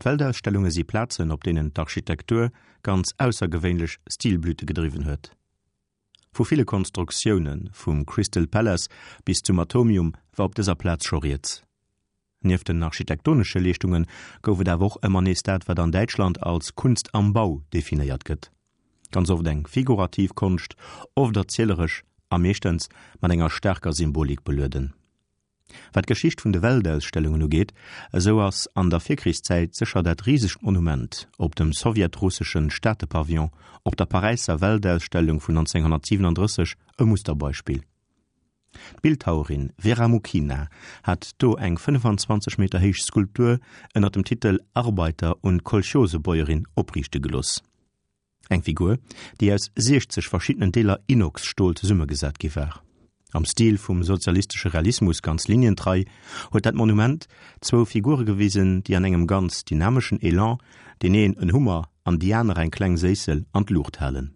D'Weltausstellunge si Plazen, op deenen d'Architektur ganz aussergewéinlech Stilblüte gedriwwen huet. Vu ville Konstruktiounen, vum Crystal Palace bis zum Atomium, war op dëser Plaz scho rieds. Nieft den architektonesche Leeschtunge gouf et awer och ëmmer nees dat, wat an Däitschland als Kunst am Bau definéiert gëtt. Ganz oft eng figurativ Konscht, oft erzieleresch a meeschtens mat enger staarker Symbolik belueden. Wat d'Geschicht vun de Weltausstellungen ugeet, esou ass an der Virkrichszäit sécher dat risegt Monument op dem sowjetrusseschen Staatepavillon op der Paräisser Weltausstellung vun 1937 e Musterbeispill. D'Bildhauerin Vera Mukhina hat do eng 25 Meter héich Skulptur ënner dem Titel Arbeiter und Kolchosebäuerin opriichte gelooss. Eng Figur, déi aus 60 verschiddenen Deeler Inox-Stol zesummegesat gi war. Am Stil vum sozialistesche Realismus ganz linientrei, huet dat Monument zwou Figure gewisen, déi an engem ganz dynameschen Elan deen een en Hummer an déi aner eng kleng Séissel an d'Luucht halen.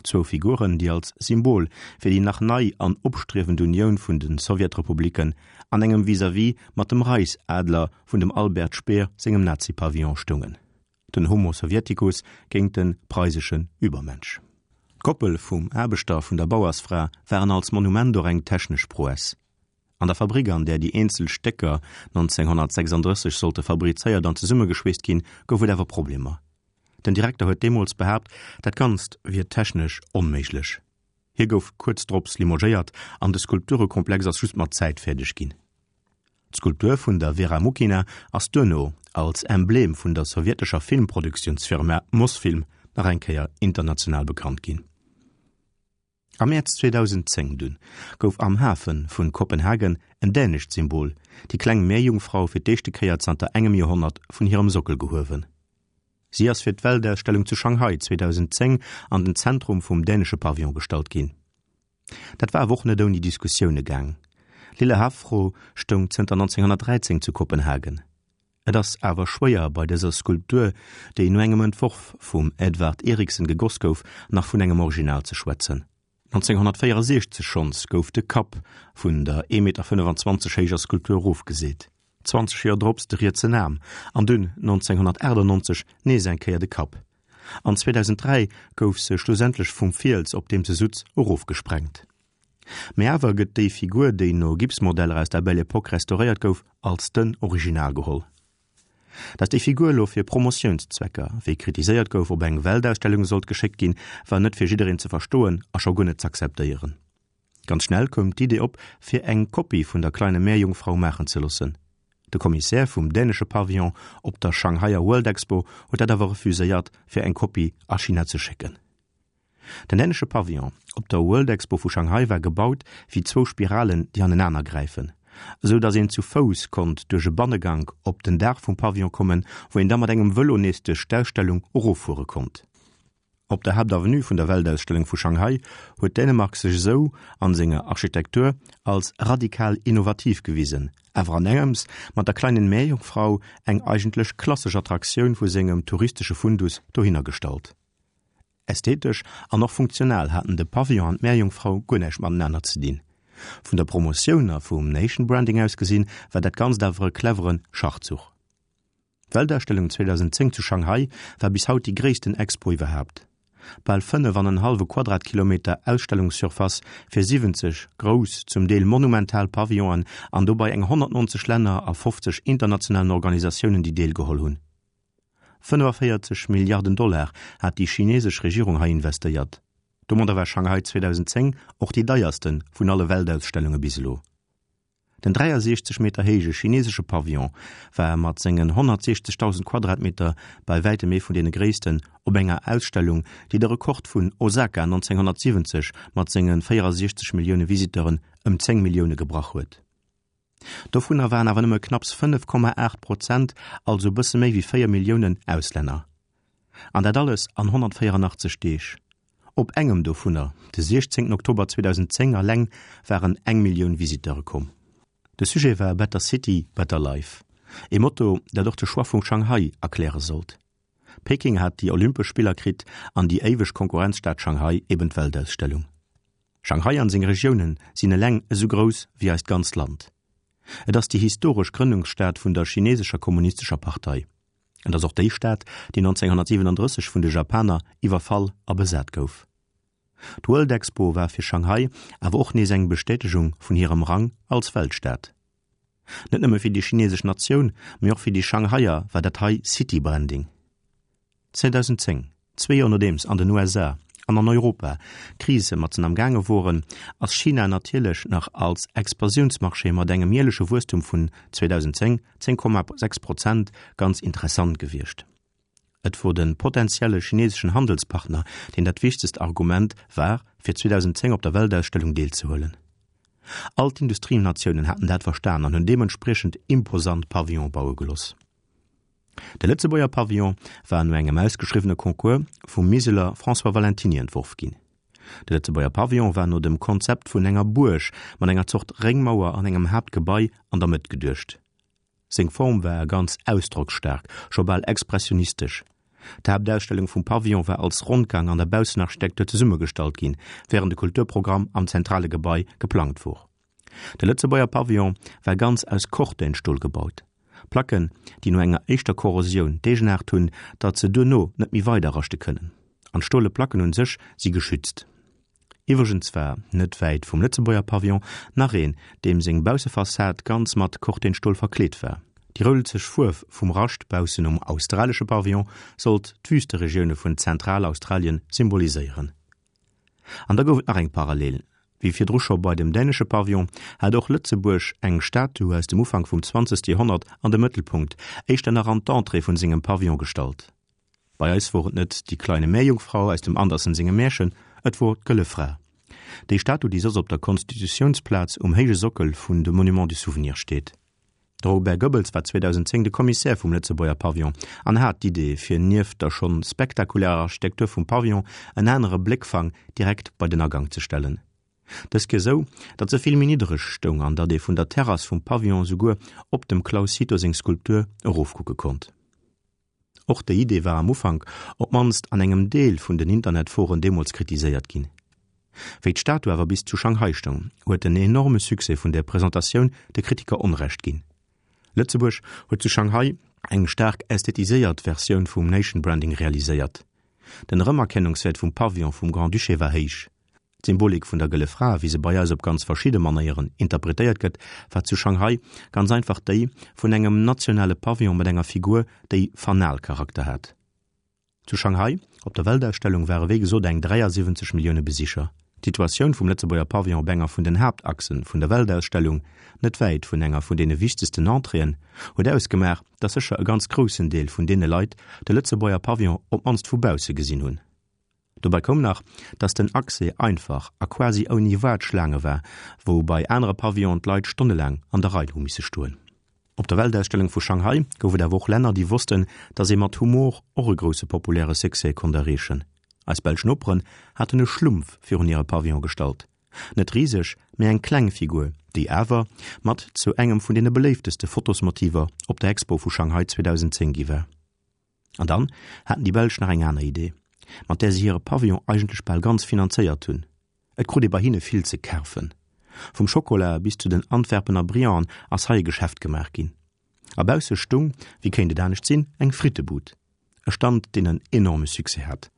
Zwou Figuren, déi als Symbol fir déi nach nei an opstriewend Unioun vun de Sowjetrepubliken an engem Vis-à-vis mat dem Reichsadler vun dem Albert Speer sengem Nazi-Pavillon stoungen. Den Homo Sovieticus géint den preiseschen Übermensch. D'Koppel vum Aarbechter a vun der Bauersfra waren als Monument och eng technesch Prouesse. An der Fabrik, an där déi eenzel Stécker 1936 sollte fabrizéiert an zesummegeschweesst ginn, gouf et awer Problemer. Den Direkter huet deemools behaapt, dat Ganzt wier technesch onméiglech. Hie gouf kuerz drops limogéiert an de Skulpturekomplex ass just mat Zäit fäerdeg ginn. D'Skulptur vun der Vera Mukhina ass duerno als Emblem vun der sowjetescher Filmproduktiounsfirma Mosfilm nach eng Kéier international bekannt ginn. Am Mäerz 2010 dunn gouf am Hafe vun Kopenhagen en dänescht Symbol, déi kleng Meerjungfrau, fir d'éischte Kéier zanter engem Joerhonnert vun hirem Sockel gehuewen. Si ass fir d'Weltausstellung zu Shanghai 2010 an den Zentrum vum dänesche Pavillon gestallt ginn. Dat war awer och net ouni Diskussioune gaang. Lille Havfrue stoung zënter 1913 zu Kopenhagen. Et ass awer schwéier bei dëser Skulptur, déi no engem Entworf vum Edvard Eriksen gegoss gouf, nach vun engem Original ze schwätzen. 1964 schonns gouf de Kapp vun der 1,25 Meter héijer Skulptur erofgeseet, 20 Joer drops de rietsen Aarm an dunn 1998 nees eng Kéier de Kapp. An 2003 gouf se schlussendlech vum Fiels, op deem se sutz, erofgesprengt. Mee awer gëtt déi Figur, déi no Gipsmodeller aus der Belle Epoque restauréiert gouf, als den Original geholl. Datt déi Figur elo fir Promotiounszwecker, wéi kritiséiert gouf, op eng Weltausstellung sollt geschéckt ginn, war net fir jiddereen ze verstoen a scho guer net z'akzeptéieren. Ganz schnell koum d'Idee op, fir eng Kopie vun der Kleine Meerjungfrau maachen ze loossen. De Kommissär vum dänesche Pavillon op der Shanghaier World Expo huet dat awer refuséiert, fir eng Kopie a China ze schécken. Den dänesche Pavillon op der World Expo vu Shanghai war gebaut wéi zwou Spiralen, déi anenaner gräifen, esou datt een zu Fouss konnt duerch e Bannegank op den Daach vum Pavillon kommen, wou een da mat engem Vëlo nees duerch d'Ausstellung eroffuere konnt. Op der Haaptavenue vun der Weltausstellung vu Shanghai huet Dänemark sech esou an senger Architektur als radikal innovativ gewisen, awer an engems mat der Kleinen Meerjungfrau eng eigentlech klassesch Attraktioun vu sengem touristesche Fundus dohinner gestallt. Ästhetesch an och funktional haten de Pavillon an d'Meerjungfrau guer näischt matenaner ze dinn. Vun der Promotioun a vum Nation Branding aus gesinn, war dat Ganzt awer e clevere Schachzuch. D'Weltausstellung 2010 zu Shanghai war bis haut déi gréissten Expo iwwerhaapt. Bal 5 an en hallwe Quadratkilometer Ausstellungssurface fir 70 grouss, zum Deel monumental Pavillonen an dobei eng 190 Länner a 50 internationalen Organisatiounen, déi deelgeholl hunn. 45 Milliarden Dollar hat déi chinesesch Regierung hei investéiert. Domadder war Shanghai 2010 och déi deierste vun alle Weltausstellunge bis elo. Den 63 Meter héije chinesesche Pavillon war mat sengen 160.000 Quadratmeter bei wäitem ee vun deene gréissten op enger Ausstellung, déi de Rekord vun Osaka 1970 mat senge 64 Millioune Visiteuren ëm 10 Millioune gebrach huet. Dovunner waren awer nëmme knapps 5,8 Prozent, also e bësse méi wéi 4 Milliounen, Auslänner. An dat alles an 184 Deeg. Op engem dovunner, de 16 Oktober 2010 eleng, waren eng Millioun Visiteure komm. De Sujet war Better City, Better Life, ee Motto, dat och de Choix vu Shanghai erkläre sollt. Peking hat déi Olympesch Spiller kritt an déi éiweg Konkurrenzstad Shanghai eben d'Weltausstellung. Shanghai an seng Regiounen sinn eleng esou grouss wéi eist ganzt Land. Et ass déi historesch Grënnungsstad vun der chinesescher kommunistescher Partei. Et ass och déi Stad, déi 1937 vun de Japaner iwwerfall a besat gouf. D'World Expo war fir Shanghai awer och nees eng Bestätegung vun hirem Rang als Weltstad. Net nëmme fir déi chinesesch Natioun, mee och fir déi Shanghaier war dat hei City-Branding. 2010, zwee Joer nodeems an den USA an an Europa d'Krise matzen am gaange woren, ass China natierlech nach als Expansiounsmarché mat engem jäerleche Wuesstum vun 2010 10,6 Prozent ganz interessant gewiescht. Et wor de potentielle chineseschen Handelspartner, deen dat wichtegst Argument war, fir 2010 op der Weltausstellung deelzehuelen. All d'Industrienatiounen haten dat verstan an hunn deementspriechend imposant Pavillone baue geloss. De Lëtzebuerger Pavillon war no engem ausgeschriwwene Concours vum Miseler François Valentiny entworf ginn. De Lëtzebuerger Pavillon war no dem Konzept vun enger Buerg mat enger Zort Réngmauer an engem Haaptgebai an der Mëtt geduecht. Seng Form war ganz ausdrocksstaark, scho bal expressionistesch. D'Haaptausstellung vum Pavillon war als Rondgang an der Baussenarchitektur zesummegestallt ginn, wärend de Kulturprogramm am zentrale Gebai geplangt wor. De Lëtzebuerger Pavillon war ganz aus Cortenstol gebaut. Placken, déi no enger éischter Korrosioun d'Eegenaart hunn, datt se duerno net méi weider raschte kënnen. An d'stole Placken un sech si geschützt. Iwwregens war, net wäit vum Lëtzebuerger Pavillon, nach een, deem seng Baussefassad ganz mat Cortenstol verkleet war. Déi roulzeg Fuerf vum Rascht baussen um australesche Pavillon sollt d'Wüsteregioune vun Zentralaustralien symboliséieren. An da gouf et nach eng Parallel, Wéi virdru scho bei dem dänesche Pavillon, hat och Lëtzebuerg eng Statue aus dem Ufank vum zwanzegste Joerhonnert an de Mëttelpunkt, éischter nach an d'Entrée vun sengem Pavillon gestallt. Bei eis wor et net die kleine Meerjungfrau aus dem Andersen sengem Märchen, et wor d'Gëlle Fra. Déi Statue, déi soss op der Konstitutiounsplaz um héije Sockel vun de Monument du Souvenir steet. De Robert Goebbels war 2010 de Kommissär vum Lëtzebuerger Pavillon an hat d'Idee, fir nieft der schonn spektakulärer Architektur vum Pavillon en anere Bléckfang direkt bei den Agank ze stellen. Dës Kéier sou, datt se vill méi niddereg stoung an datt ee vun der Terrass vum Pavillon souguer op dem Claus Cito seng Skulptur erofkucke konnt. Och déi Idee war am Ufank, op d'mannst an engem Deel vun den Internetforen deemools kritiséiert ginn. Wéi d'Statue awer bis zu Shanghai stoung, huet den enorme Succès vun der Presentatioun de Kritiker Onrecht ginn. Lëtzebuerg huet zu Shanghai eng staark ästhetiséiert Versioun vum Nation Branding realiséiert. Den Erëmerkennungswäert vum Pavillon vum Grand-Duché war héich. D'Symbolik vun der Gëlle Fra, wéi se bei eis op ganz verschidde Manéieren interpretéiert gëtt, war zu Shanghai ganz einfach déi vun engem nationale Pavillon mat enger Figur, déi Fanalcharakter hat. Zu Shanghai op der Weltausstellung ware wéi gesot eng 73 Millioune Besicher. D'Situatioun vum Lëtzebuerger Pavillon op enger vun den Haaptachse vun der Weltausstellung, net wäit vun enger vun deene wichtegsten Entréeën, huet ausgemaach, datt sécher e ganz groussen Deel vun deene Leit de Lëtzebuerger Pavillon op d'mannst vu bausse gesinn hunn. Dobei koum nach, dass den Accès einfach a quasi ouni Waartschlaange war, wou bei anere Pavillonen d'Leit stonnelaang an der Rei hu misse stoen. Op der Weltausstellung vu Shanghai gouf et awer och Länner, déi wossten, dass ee mat Humor och e grousse populäre Succès konnt erreechen. Eis belsch Noperen haten e Schlumpf virun hire Pavillon gestallt. Net riseg, mee eng kleng Figur, déi awer mat zu engem vun deene beléifteste Fotosmotiver op der Expo vu Shanghai 2010 gi war. An dann haten déi Belsch nach eng aner Idee, mat där se hire Pavillon eigentlech bal ganz finanzéiert hunn. Et krut ee bei hinne vill ze kafen. Vum Schokola bis zu den Antwerpener Brillanten ass hei e Geschäft gemaach ginn. A bausse stung, wéi kéint et anescht sinn, eng Frittebud. E Stand, deen en enorme Succès hat.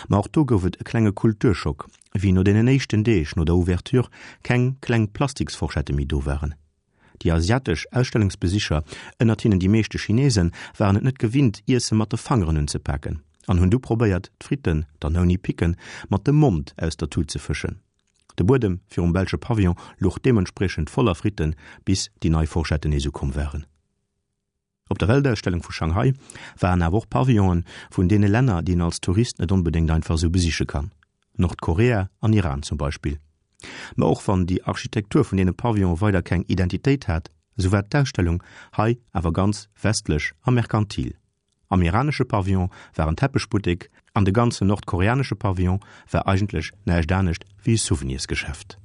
Ma och do gouf et e klenge Kulturschock, wéi no deenen éischten Deeg no der Ouverture keng kleng Plastiksforschette méi do waren. Déi asiatesch Ausstellungsbesicher, ënnert hinnen déi meeschte Chinesen, waren et net gewinnt, Iesse mat de Fangeren unzepaken an hunn du probéiert, d'Fritten, dann ouni Picken, mat dem Mond aus der Tut ze fëschen. De Buedem virum belsche Pavillon luch deementspriechend voller Fritten, bis déi nei Forschetten nees ukomm waren. Op der Weltausstellung vu Shanghai waren awer och Pavillonen vun deene Länner, déi een als Tourist net onbedéngt einfach esou besiche kann, Nordkorea an Iran zum Beispill. Ma och wann déi Architektur vun deene Pavillone weider keng Identitéit hat, esou war d'Ausstellung hei awer ganz westlech a merkantil. Am iranesche Pavillon war en Teppechbuttek an de ganzen nordkoreanesche Pavillon war eigentlech näischt anescht wéi e Souvenirsgeschäft.